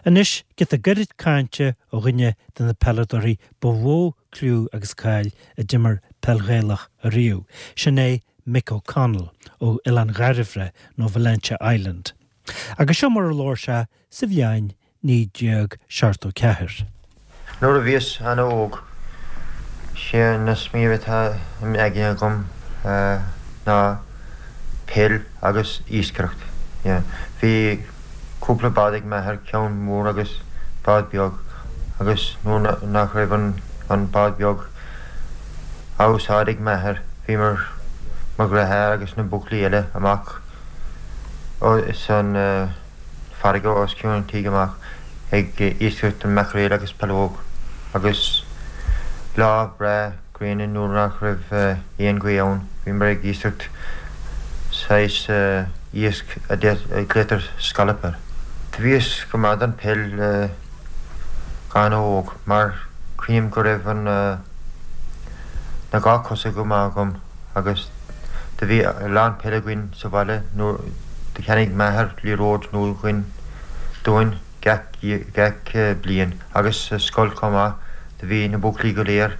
Anois, giota gairid cainte ó dhuine de na peileadóirí ba mhó cliú agus cáil a d'imir peil Ghaelach ariamh, sin é Mick O'Connell ó Oileán Dhairbhre nó Valentia Island. Agus seo mar a labhair sé sa bhliain 1974. Nuair a bhíos ana-óg, sé an smaoineamh atá im aigne agam ná peil agus iascaireacht. Bhí cúpla bád ag m'athair, ceann mór agus bád beag, agus nuair nach raibh an bád beag á úsáid ag m'athair, bhíomar, mo dheartháir agus na buachaillí eile, amach san farraige os cionn an tígh amach ag iascaireacht an maicréil agus pealóg agus lá breá gréine nuair nach raibh aon ghaoth ann bhíomar ag iascaireacht saghas iasc a glaotar scallop air. Do bhíos go maith don peil go h-ana-óg mar cuimhním go raibh an na dhá cosa go maith agam agus do bhí a lán peile againn sa bhaile nuair do cheannaigh m'athair liathróid nua dhuinn, dúinn gach, gach bliain agus sa scoil chomh maith do bhí na buachaillí go léir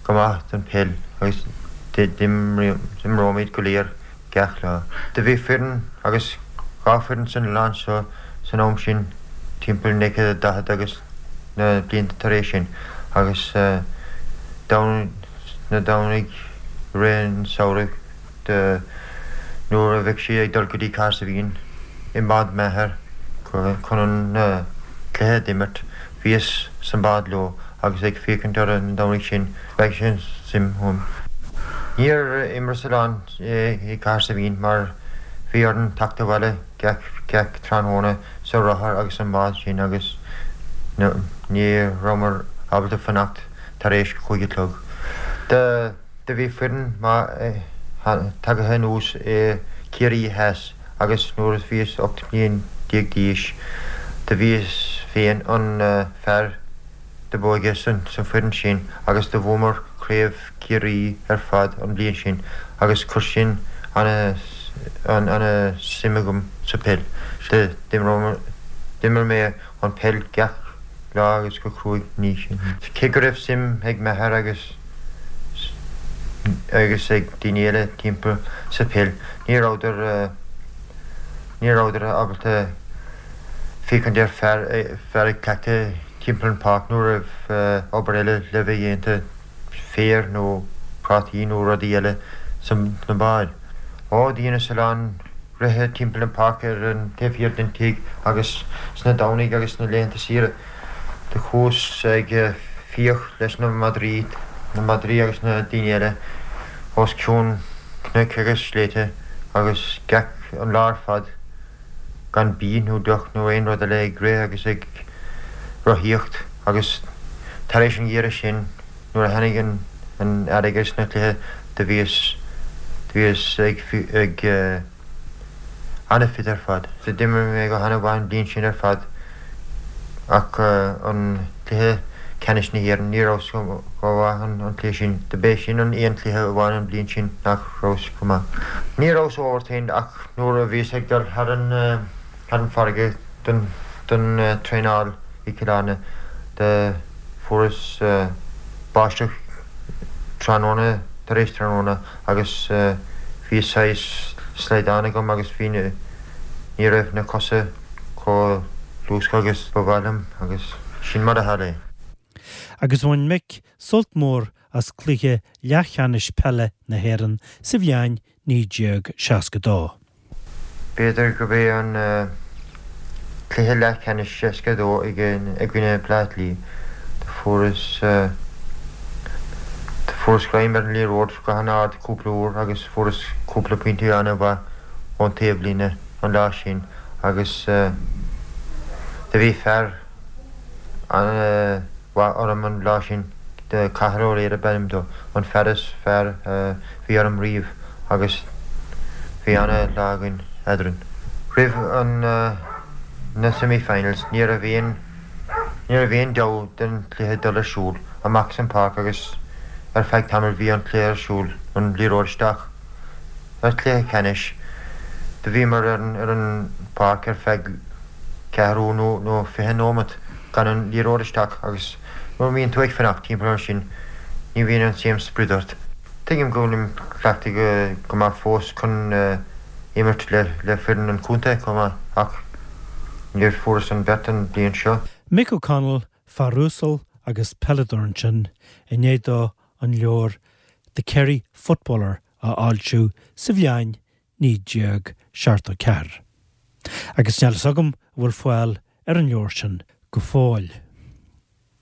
go maith don peil agus d'imreoimid go léir gach lá. Do bhí foireann agus dha foireann san oileán seo san am sin timpeall 1940 agus na blianta tar éis sin agus na Domhnaigh i rith an samhraidh nuair a bheadh siad ag dul go dtí Cahersiveen i mbád m'athar chun an cluiche d'imirt, bhíos san bád leo agus ag féachaint orthu na Domhnaigh sin, spreag sin suim ionam. Níor imreas a lán i Cahersiveen mar bhí orainn teacht abhaile gach tráthnóna sa rothar agus an bád sin agus ní rabhamar ábalta fanacht tar éis chúig a chlog. Do bhí foireann maith tagaithe anuas i Ciarraí Theas agus nuair a bhíos 18 mbliain d'aois do bhíos féin an fear do b'óige san foireann sin agus do bhuamar craobh Ciarraí ar fad an bliain sin agus chuir sin ana ana suim agam sa peil. D'imir mé an peil gach lá agus go cruaidh ní sin. Cé go raibh suim ag m'athair agus agus ag daoine eile timpeall sa peil ní rabhadar ní rabhadar ábalta féachaint ar fear fear ag cleachtadh timpeall an pháirc nuair a raibh obair eile le bheith dhéanta, féar nó prátaí nó rudaí eile sna báid. Ó, dheineas a lán rith timpeall an pháirc ar an taobh thiar den tigh agus sna Domhnaigh agus sna laethanta saoire do chuas ag fiach leis na madraí, na madraí agus na daoine eile os cionn cnoic agus sléibhte agus gach an lá ar fad gan bídh nó deoch nó aon rud eile ag rith agus ag rothaíocht agus tar éis an gheimhridh sin nuair a tháinig an earrach agus na cluiche do bhíos do bhíos ag ag ana-fit ar fad. D'imir mé go hana-mhaith an bhliain sin ar fad ach an cluiche ceannais na hÉireann ní rabhas go mhaith an cluiche sin. Do b'é sin an aon cluiche amháin an bhliain sin nach rabhas go maith. Ní rabhas overtrained ach nuair a bhíos ag dul thar an thar an farraige don don traenáil i gCill Airne do fuaireas báisteach tráthnóna tar éis tráthnóna agus bhí saghas slaghdán agam agus bhí na ní raibh na cosa chomh luasctha agus ba mhaith liom agus sin mar a tharla é. Agus bhain Mick sult mór as cluiche leathcheannais peile na hÉireann sa bhliain 1962. B'fhéidir gurb é an cluiche leathcheannais 62 i gcoinne Bleá Cliath. Do fuaireas do fuaireas greim ar an liathróid go han-ard cúpla uair agus fuaireas cúpla pointe an-mhaith ón taobhlíne an lá sin agus do bhí fear an-mhaith orm an lá sin, Cathal Ó Laoire ab ainm dó, an fear is fearr a bhí orm riamh agus bhí ana-lá againn eadrainn. Roimh an na semi-finals ní raibh aon ní raibh aon dabht den chluiche dul ar siúl amach san páirc agus ar feadh tamaill bhí an cluiche ar siúl, an liathróid isteach. Ar chluiche ceannais do bhíomar ar an ar an páirc ar feadh. ceathrú nó nó 20 nóimeat gan an liathróid isteach agus nuair a bhíonn tú ag fanacht timpeall ar sin ní bhíonn an same sprid ort. Tuigim go bhfuilim cleachtaithe go maith fós chun imirt le le foireann an chontae chomh maith ach níor fuaireas an bheirt an bhliain seo. Mick O'Connell, fear uasal agus peileadóir ansin, i ndiaidh dó an leabhar The Kerry Footballer a fhoilsiú sa bhliain 1974. Agus níl fhios agam an bhfuil fáil ar an leabhar sin go fóill.